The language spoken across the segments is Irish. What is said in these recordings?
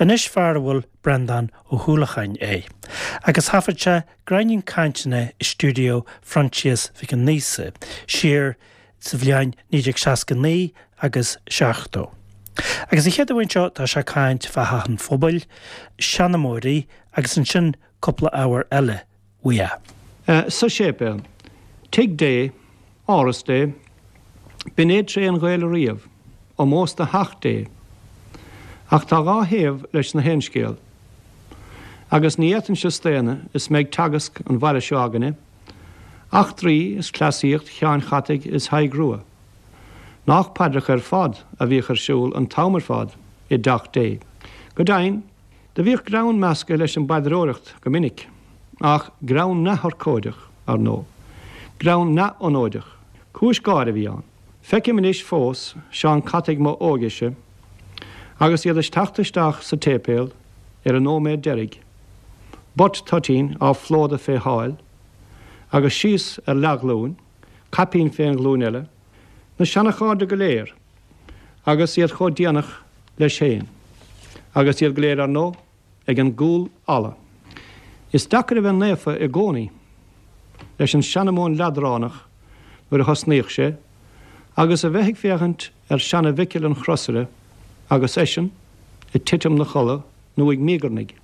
Anois fear a bhfuil Breandán Ó hUallacháin é. Agus thaifead sé gráinnín cainteanna i stiúideo Phroinsias Mhic Aonghusa siar sa bhliain 1969 agus 70. Agus an chéad uair seo tá sé ag caint fá Theach an Phobail, seanmóirí agus ansin cúpla ábhar eile uaidh. Sa séipéal. Tigh Dé, Áras Dé, b'in é tréith an Ghaeil ariamh, ómós do theach Dé. Ach tá dhá thaobh leis na haon scéal. Agus ní fhéadfainnse staonadh is mé ag teagasc an bhaile seo againne, eachtraí is cleasaíocht Sheáin Chataigh is Thaidhg Rua. Nách paidreacha ar fad a bhíodh ar siúl an t-am ar fad i dteach Dé. Go deimhin, Do bhíodh greann measctha leis an bpaidreoireacht go minic, ach greann neamhurchóideach, ar ndóigh. Greann neamhfhonóideach. Cúis gáire a bhí ann. Feicim anois fós Seán Cataigh m'óige-se agus iad ag teacht isteach sa tséipéal ar an nóiméad deiridh, butt toitín á phlódadh fé sháil, agus síos ar leathghlúin, caipín fén ghlúin eile, na seanachairde go léir. Agus iad chomh déanach leis féin. Agus iad go léir, ar ndóigh, ag an gcúl fhalla. Is deacair a bheith naofa i gcónaí leis an seanmóin leadránach nuair a thosnaíodh sé, agus a bheith ag féachaint ar seana-Mhicil an Chrosaire agus eisean ag titim 'na chodladh nó ag míogarnaigh.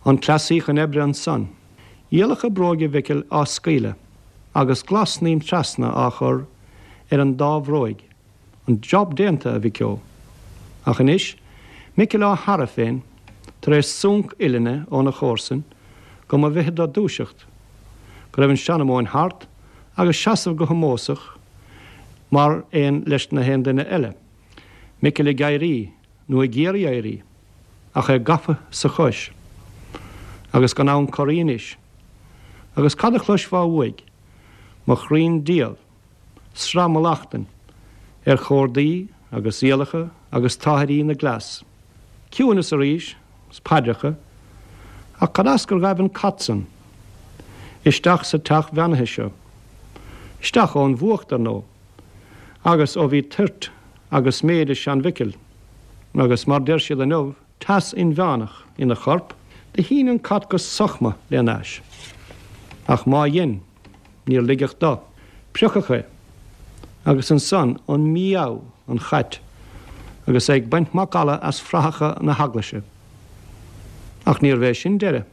An cleasaí chun oibre ansan. Iallacha bróige Mhicil á scaoileadh agus glas-snaidhm trasna á chur ar an dá bhróig. An job déanta, a Mhic Eo. Ach anois, Micil á tharadh féin, tar éis súnc uillinne óna chomharsain, go mba mhithid dó dúiseacht, go raibh an seanmóin thart, agus seasamh go hómósach mar aon leis na haon duine eile. Micil ag éirí, nó ag iarraidh éirí, ach é gafa sa chois, agus gan ann corraí anois. Agus cad a chloisfeá uaidh? Mo chroínn diabhal, sraith mallachtain ar chórdaí agus iallacha agus táthairí na gcleas. Ciúineas arís, 's paidreacha, ach cad as gur ghaibh an cat san isteach sa teach bheannaithe seo? Isteach ón bhfuacht, ar ndóigh, agus ó bhí toirt agus méide sean-Mhicil, agus mar deir siad inniu, teas inmheánach ina chorp, do shín an cat go sochma lena ais. Ach má dhein, níor ligeadh do. Priocadh é. Agus ansan an mí-ádh an chait agus é ag baint macalla as frathacha na heaglaise. Ach níorbh é sin deireadh.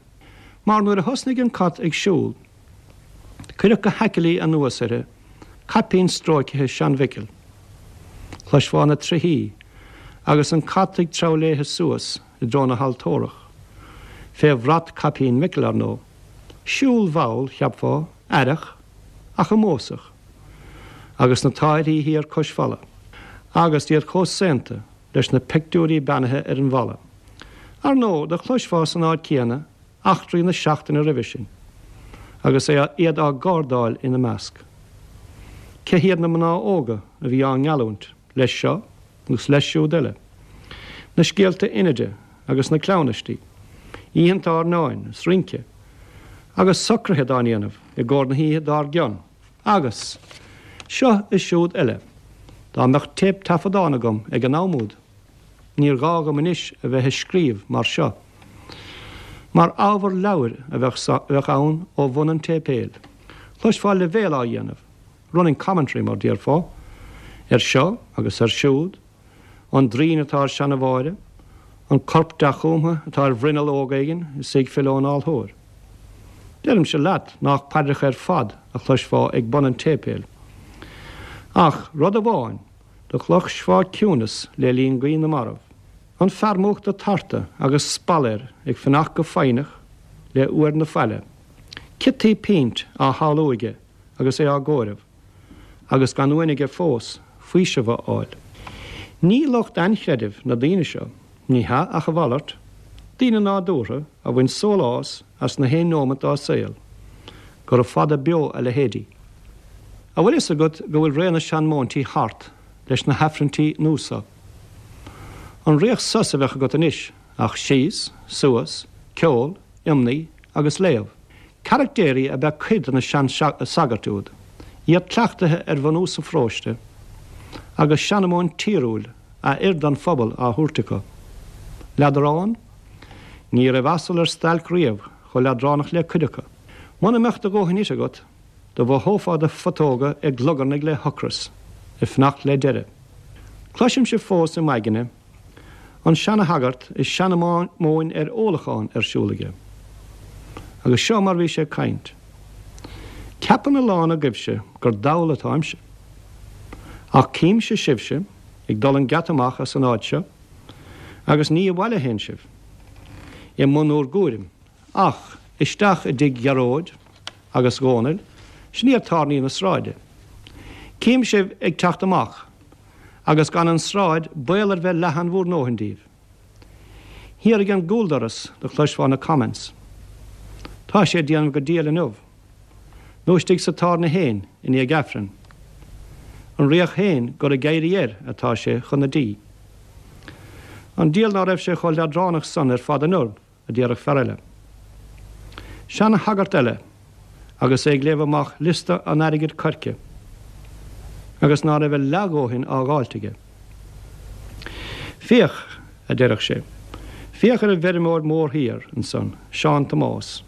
Mar nuair a thosnaigh an cat ag siúl, Cuireadh go haicilí anuas uirthi caipín stróicthe sean-Mhicil. Chloisfeá na trithí agus an cat ag treabhadh léithe suas i dtreo na haltórach, fé bhrat caipín Mhicil, ar ndóigh. Siúl mhall, cheapfá, aireach, ach ómósach. Agus na táithrí thiar cois falla. Agus iad chomh saonta leis na peictiúirí beannaithe ar an bhfalla. Ar ndóigh, do chloisfeá san áit chéanna eachtraí na seachtaine roimhe sin, agus iad á gcardáil ina measc. Cé hiad na mná óga a bhí á ngeallúint leis seo agus leis siúd eile? Na scéalta Inide agus na cleamhnaistí, oícheanta airneáin is rince, agus socruithe dá ndéanamh i gcomhair na hoíche dár gcionn, agus seo is siúd eile. Dá mbeadh téip-taifeadán agam ag an am úd! Níor ghá dhom anois a bheith ag scríobh mar seo, mar ábhar leabhair a bheadh ann ó bhun an tséipéil. Chloisfeá leibhéal á dhéanamh, running commentary mar déarfá, ar seo agus ar siúd, an draoin atá ar seana-Mháire, an corp dea-chúmtha atá ar bhruinneall óg éigin is í ag filleadh ón altóir. Deirimse leat nách paidreacha ar fad a chloisfeá ag bun an tséipéil. Ach rud amháin Do chloisfeá ciúnas le linn guí na marbh. An fear múchta tarta agus spal air ag fanacht go foighneach le uair na faille. Ciotaí pínt á shamhlú aige agus é á gcomhaireamh, agus gan uain aige fós faoiseamh a fháil. Ní lucht ainchreidimh na daoine seo, ní hea ach a mhalairt, daoine nádúrtha a bhain sólás as na haon neomat dá saol. Gura fada beo a leithéidí. A bhfuil fhios agat go bhfuil ré na seanmóintí thart leis na hAifrinntí nua so? An riach sos a bheadh agat anois ach síos, suas, ceol, iomnaí agus léamh. Caractéirí ab ea cuid de na sean-sagairt úd, iad cleachtaithe ar bhunús an pharóiste agus seanmóin tíriúil a oir don phobal á thabhairt acu. Leadrán? Ní raibh asal ar stailc riamh chomh leadránach le cuid acu. Muna mbeadh do dhóthain ite agat, do mhothófá do phutóga ag glugarnaigh le hocras, ag fanacht le deireadh. Cloisimse fós i m'aigne an seana-shagart is seanmóin ar ólachán ar siúl aige. Agus seo mar bhí sé ag caint. Ceapann a lán agaibhse gur dall atáimse. Ach címse sibhse ag dul an geata amach as an áit seo agus ní abhaile a théann sibh, i mbun úr gcúraim, ach isteach i dtigh Ghearóid agus Dhónaill, sin iad tábhairní na sráide. Cím sibh ag teacht amach agus gan an tsráid baol ar bheith leathan bhúr ndóthain díbh. Thiar ag an gcúldoras do chloisfeá na comments. Tá sé ag déanamh go diail inniu. Nó istigh sa tábhairne fhéin i ndiaidh Aifrinn. An riach fhéin gur ag éirí air atá sé chun na dí. An diabhal ná raibh sé chomh leadránach san ar fad inniu, a déarfadh fear eile. Seana-shagart eile agus é ag léamh amach liosta an airgid coirce agus ná raibh a leathdhóthain á dháilt aige. Féach, a deireadh sé, féach ar an bhfeirmeoir mór thiar ansan, Seán Tomás.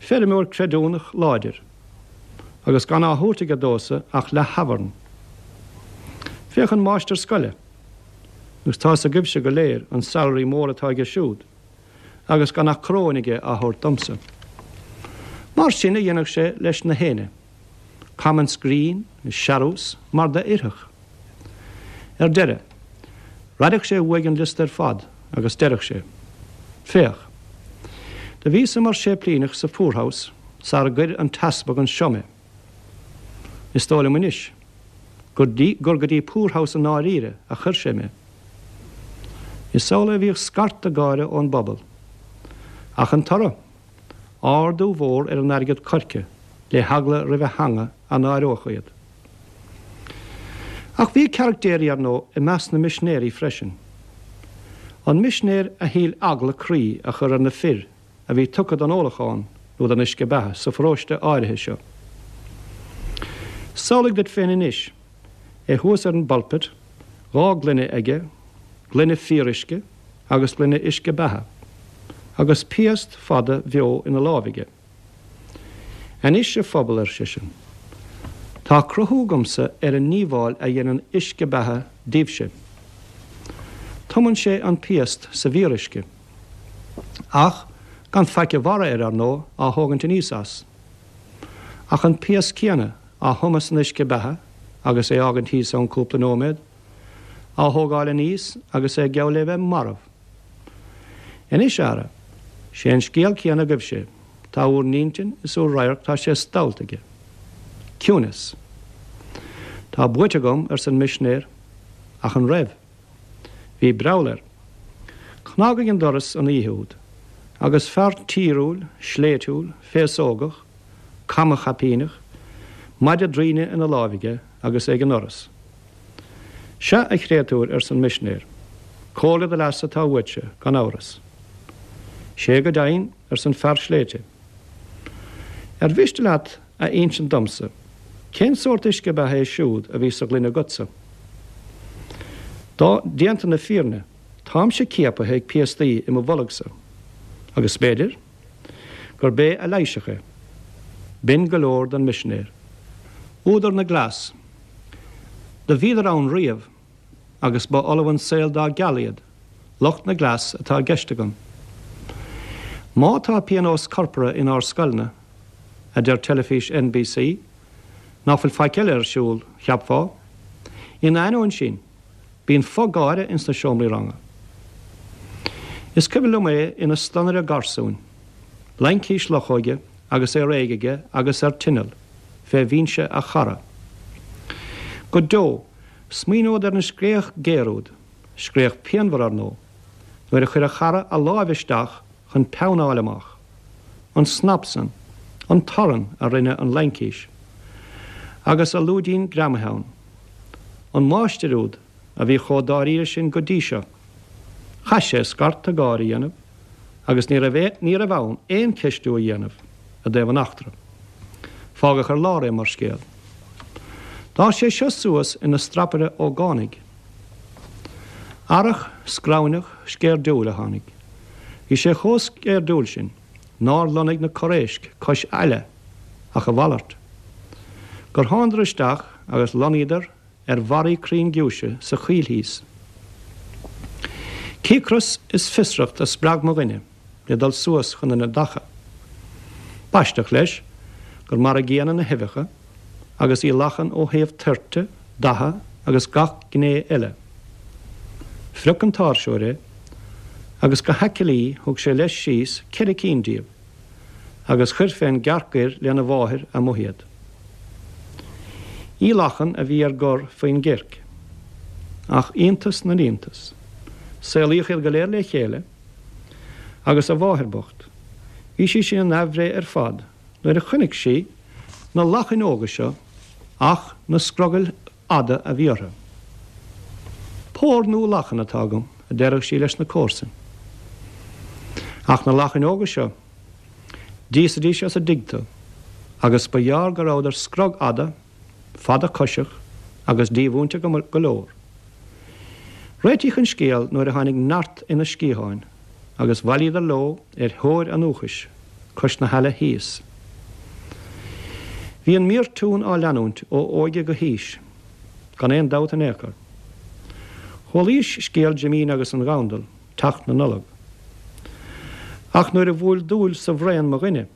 Feirmeoir creidiúnach láidir, agus gan á thabhairt aige domhsa ach leath-thabharn. Féach an máistir scoile, agus tá's agaibhse go léir an salary mór atá aige siúd, agus gan ach coróin aige á thabhairt domsa. Mar sin a dhéanadh sé leis na héinne. Comments grinn is searús mar d'oirfeadh. Ar deireadh, raideadh sé uaidh an liosta ar fad agus deireadh sé, Féach. Do bhíos-sa mar séiplíneach sa Poorhouse sara gcuir an t-easpag anseo mé. Is dóigh liom anois gur gur go dtí Poorhouse i ndáiríre a chuir sé mé. Is amhlaidh a bhíodh scarta gáire ón bpobal. Ach an toradh? Ardú mhór ar an airgead coirce le heagla roimh a theanga a náireodh iad. Ach bhí caractéirí, ar ndóigh, i measc na misinéirí freisin. An misinéir a shíl eagla croí a chur ar na fir a bhí tugtha don ólachán nó don uisce beatha sa pharóiste áirithe seo. Samhlaigh duit féin anois é thuas ar an bpulpit, 2 gloine aige, gloine fíoruisce agus gloine uisce beatha, agus piast fada bheo ina láimh aige. Anois, a phobal, ar seisean, tá cruthú agamsa ar an ndíobháil a dhéanann uisce beatha daoibhse. Tumann sé an piast sa bhfíoruisce. Ach gan faic a bharra air, ar ndóigh, á thógaint aníos as. Ach an piast céanna á thumadh san uisce beatha agus é fhágaint thíos ann cúpla nóiméad, á thógáil aníos agus é geall le bheith marbh. Anois, ara, sé an scéal céanna agaibhse, tá úr n-intinn is úr radharc tá sé stallta aige. Ciúnas. Tá buaite agam, arsa an misinéir. Ach an raibh? Bhí breall air. Cnagadh ag an doras an oíche úd, agus fear tíriúil, sléibhtiúil, féasógach, cama-chaipíneach, maide draoine ina láimh aige agus é ag an ndoras. Sea, a chréatúir, arsa an misinéir, comhairle do leasa atá uaitse, gan amhras. Sé go deimhin, arsa an fear sléibhte. Ar mhiste leat a insint domsa cén sórt uisce beatha é siúd a bhí sa ghloine agatsa? Dá, déanta na fírinne, táimse ciapaithe ag piastaí i mo bholgsa, agus b'fhéidir gurb é a leigheasfadh é. B'in go leor don misinéir. Údar na gcleas. Do bhíodar ann riamh, agus ba fholamh an saol dá gceal iad, lucht na gcleas atá i gceist agam. Má tá pionós corpartha inár scoileanna, a deir teilifís NBC, ná fuil faic eile ar siúl, cheapfá. Ina ainneoin sin, bíonn fo-gháire ins na seomraí ranga. Is cuimhin liom é ina stonaire garsúin, laincis luchóige agus é réidh aige agus ar tinneall fé bhinse a chara. Go deo, smaoineod ar an scréach géar úd, scréach pianmhar ar ndóigh, nuair a chuir a chara a láimh isteach chun peann a fháil amach, an snap san, an torann a rinne an laincis, agus a lúidín greamaithe ann. An máistir úd a bhí chomh dáiríre sin go dtí seo, chaith sé scarta gáire a dhéanamh agus ní raibh ní raibh ann aon cheistiú a dhéanamh i dtaobh an eachtra. Fágadh ar lár é mar scéal. D'fhás sé seo suas ina strapaire ógánaigh. Earrach scrabhneach sceirdiúil a tháinig. Bhí sé chomh sceirdiúil sin nár lonnaigh na corréisc cois aille ach a mhalairt. Gur thánadar isteach agus lonnaíodar ar bharraí crainn giúise sa choill thíos. Cíocras is fiosracht a spreag mo dhuine le dul suas chun na dtaca. B'aisteach leis gur mar a gcéanna na huibheacha agus í lachan ó thaobh toirte, datha agus gach gné eile. Phrioc an t-áirseoir é agus go haicilí thug sé leis síos ceithre cinn díobh agus chuir fén gcearc ghoir lena mháthair amuigh iad. Í lachan a bhí ar gor faoin gcirc. Ach iontas na n-iontas, saolaíodh iad go léir le chéile agus a mháthair bocht, bhí sí sin in aimhréidh ar fad nuair a chonaic sí na lachain óga seo ach na scrogaill fhada a bhí orthu. Pór nua lachan atá agam, a deireadh sí leis na comharsain. Ach na lachain óga seo, d'íosfaidís as a dtigh tú, agus ba ghearr go rabhadar scrogfhada, fada coiseach agus dímhúinte go leor. Réitíodh an scéal nuair a tháinig neart ina sciatháin agus bhailíodar leo ar thóir a ndúchais cois na haille thíos. Bhí an míortún á leanúint ó óige go haois, gan aon dabht in aon chor. Chualaís scéal Jimín agus an Ghandail, teacht na Nollag. Ach nuair a bhuail dúil sa bhraon mo dhuine,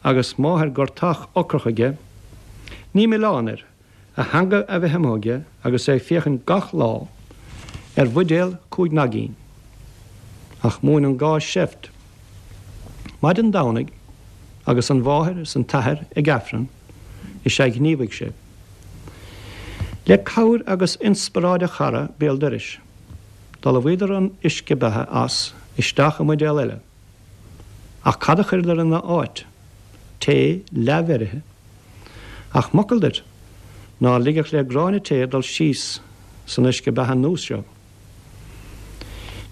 agus máthair gortach ocrach aige, ní milleán air a theanga a bheith amuigh aige agus é ag féachaint gach lá ar bhuidéal chúig naigín. Ach mhúin an gá seift. Maidin Domhnaigh, agus an mháthair is an t-athair ag Aifreann, is ea ghníomhaigh sé. Le cabhair agus inspioráid a chara béal dorais, d'fholmhaíodar an uisce beatha as isteach i mbuidéal eile. Ach cad a chuireadar ina áit? Tae leathbheirithe. Ach m'fhocal duit, ná ligfeadh le gráinne tae dul síos san uisce beatha nua seo.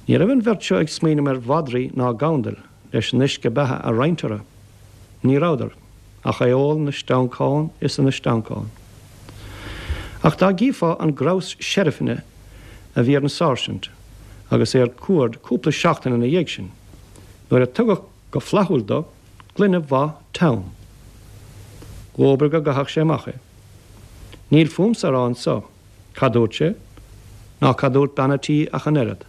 Ní raibh an bheirt seo ag smaoineamh ar mhadraí ná gandail leis an uisce beatha a roinnt orthu. Ní rabhadar ach é ól 'na steancán is ina steancán. Ach dá gcífeá an grabhas seirfine a bhí ar an sáirsint agus é ar cuaird cúpla seachtain ina dhiaidh sin, nuair a tugadh go flaithiúil do gloine mhaith teann. Dhóbair go gcaithfeadh sé amach é. Níl fúmsa a rá anso cad dúirt sé, ná cad dúirt bean a' tí ach an oiread.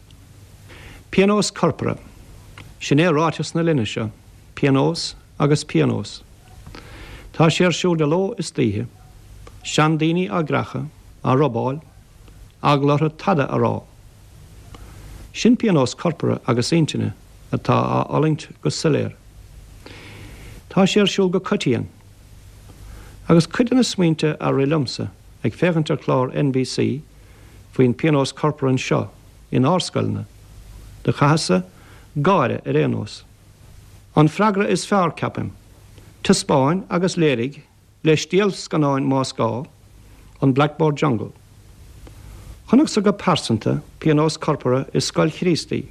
Pionós corpartha. Sin é ráiteas na linne seo, pionós agus pionós. Tá sé ar siúl de ló is d'oíche. Seandaoine á gcreachadh, á robáil, eagla orthu tada a rá. Sin pionós corpartha agus intinne atá á fhulaingt go soiléir. Tá sé ar siúl go coitian. Agus cuid de na smaointe a rith liomsa ag féachaint ar chlár NBC faoin pionós corpartha anseo inár scoileanna, do chaitheas-sa gáire ar aon nós. An freagra is fearr, ceapaim, taispeáin agus léirigh le stiallscannáin más gá, an Blackboard Jungle. Chonacsa go pearsanta pionós corpartha i scoil Chríostaí,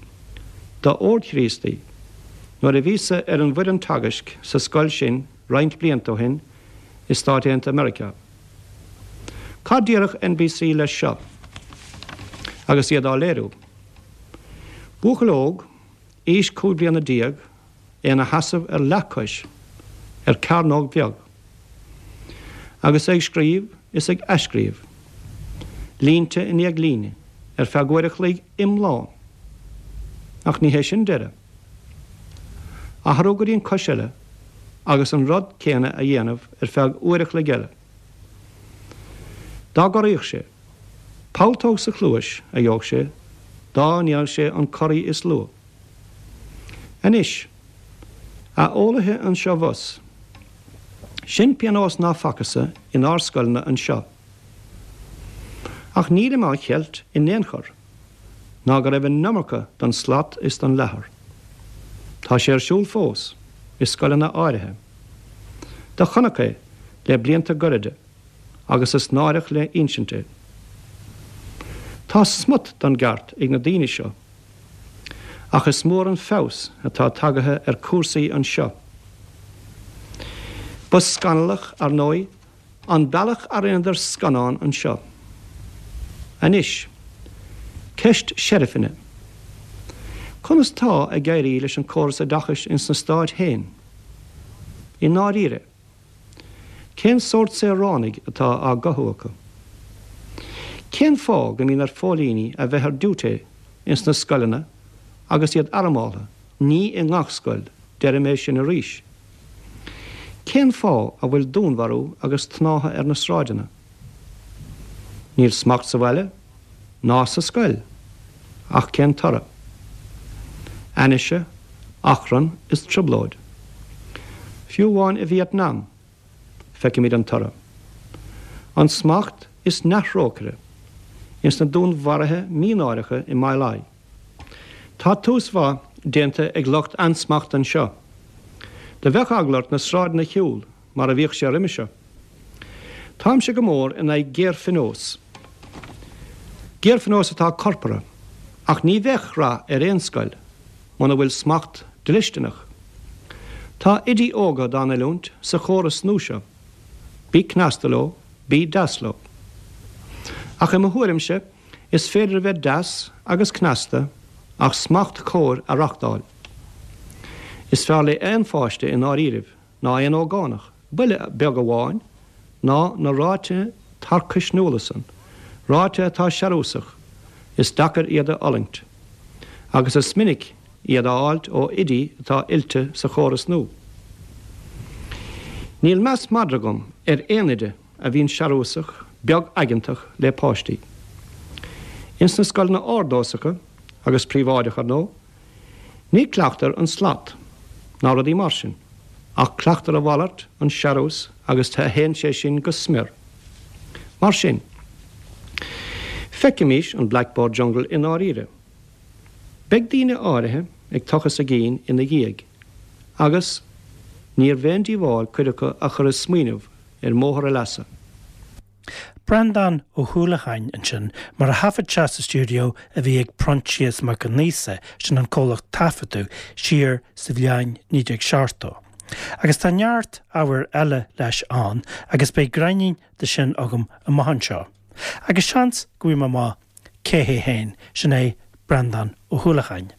d'Ord Chríostaí, nuair a bhíos-sa ar an bhfoireann teagaisc sa scoil sin roinnt blianta ó shin i Stáit Aontaithe Meiriceá. Cad déarfadh NBC leis seo agus iad á léiriú? Buachaill óg, aois 15 bliana, é ina sheasamh ar leathchois ar cearnóg bheag agus é ag scríobh is ag athscríobh, línte i ndiaidh líne, ar feadh uair a chloig iomlán. Ach ní hé sin deireadh. Athrú go dtí an cois eile agus an rud céanna a dhéanamh ar feadh uair a chloig eile. Dá gcorraíodh sé, pulltóg sa chluais a gheobhadh sé dá ndéanfadh sé an corraí is lú. Anois, a eolaithe anseo bhus, sin pionós ná facthas-sa inár scoileanna anseo. Ach nílim á cheilt in aon chor ná go raibh an iomarca don slat is don leathar. Tá sé ar siúl fós, i scoileanna áirithe. Do chonac é le blianta gairide agus is náireach le insint é. Tá smut don gceart ag na daoine seo. Ach is mór an feabhas atá tagaithe ar cúrsaí anseo. Ba scannalach, ar ndóigh, an bealach a rinneadar scannán anseo. Anois, Ceist seirfine. Conas tá ag éirí leis an córas oideachais ins na Stáit féin? I ndáiríre, cén sórt saoránaigh atá á gcothú acu? Cén fáth go mbíonn ar phóilíní a bheith ar diúité ins na scoileanna agus iad armáltha, ní i ngach scoil, deirim é sin arís. Cén fáth a bhfuil dúnmharú agus tnáitheadh ar na sráideanna? Níl smacht sa bhaile, ná sa scoil. Ach cén toradh? Ainnise, achrann is trioblóid. Fiú amháin i Vietnam, feicimid an toradh. Ansmacht is neamhthrócaire ins na dúnmharuithe mínáireacha i My Lai. Tá tús mhaith déanta ag lucht ansmachta anseo. Do bheadh eagla ort na sráideanna a shiúl mar a bhíodh sé roimhe seo. Táimse go mór in aghaidh géarphionós. Géarphionós atá corpartha, ach ní bheadh rath ar aon scoil muna bhfuil smacht dlisteanach. Tá oidí óga dá n-oiliúint sa chóras nua seo. Bí cneasta leo, bí deas leo. Ach i mo thuairimse, is féidir a bheith deas agus cneasta ach smacht cóir a reachtáil. Is fearr le aon pháiste i ndáiríribh ná aon ógánach, buille beag amháin, ná na ráithe tarcaisniúla san, ráithe atá searúsach, is deacair iad a fhulaingt. Agus is minic iad á fháilt ó oidí atá oilte sa chóras nua. Níl meas madra agam ar aon oide a bhíonn searúsach, beag-aigeantach le páistí. Ins na scoileanna ordósacha, agus príobháideach ar ndóigh, Ní cleachtar an slat, ná rudaí mar sin, ach cleachtar a mhalairt, an searús, agus théann sé sin go smior. Mar sin, feicimís an Blackboard Jungle i ndáiríre. Beidh daoine áirithe ag tochas a gcinn ina dhiaidh, agus níorbh aon díobháil cuid acu a chur ag smaoineamh ar mbóthar a leasa. Breandán Ó hUallacháin ansin, mar a thaifead sé sa stiúideo a bhí ag Proinsias Mac Con Aosa, sin an comhlacht taifeadadh, siar sa bhliain 1970. Agus tá neart ábhair eile leis ann agus beidh gráinnín de sin agam amach anseo. Agus seans go bhfaighidh mé amach cé hé féin, sin é Breandán Ó hUallacháin.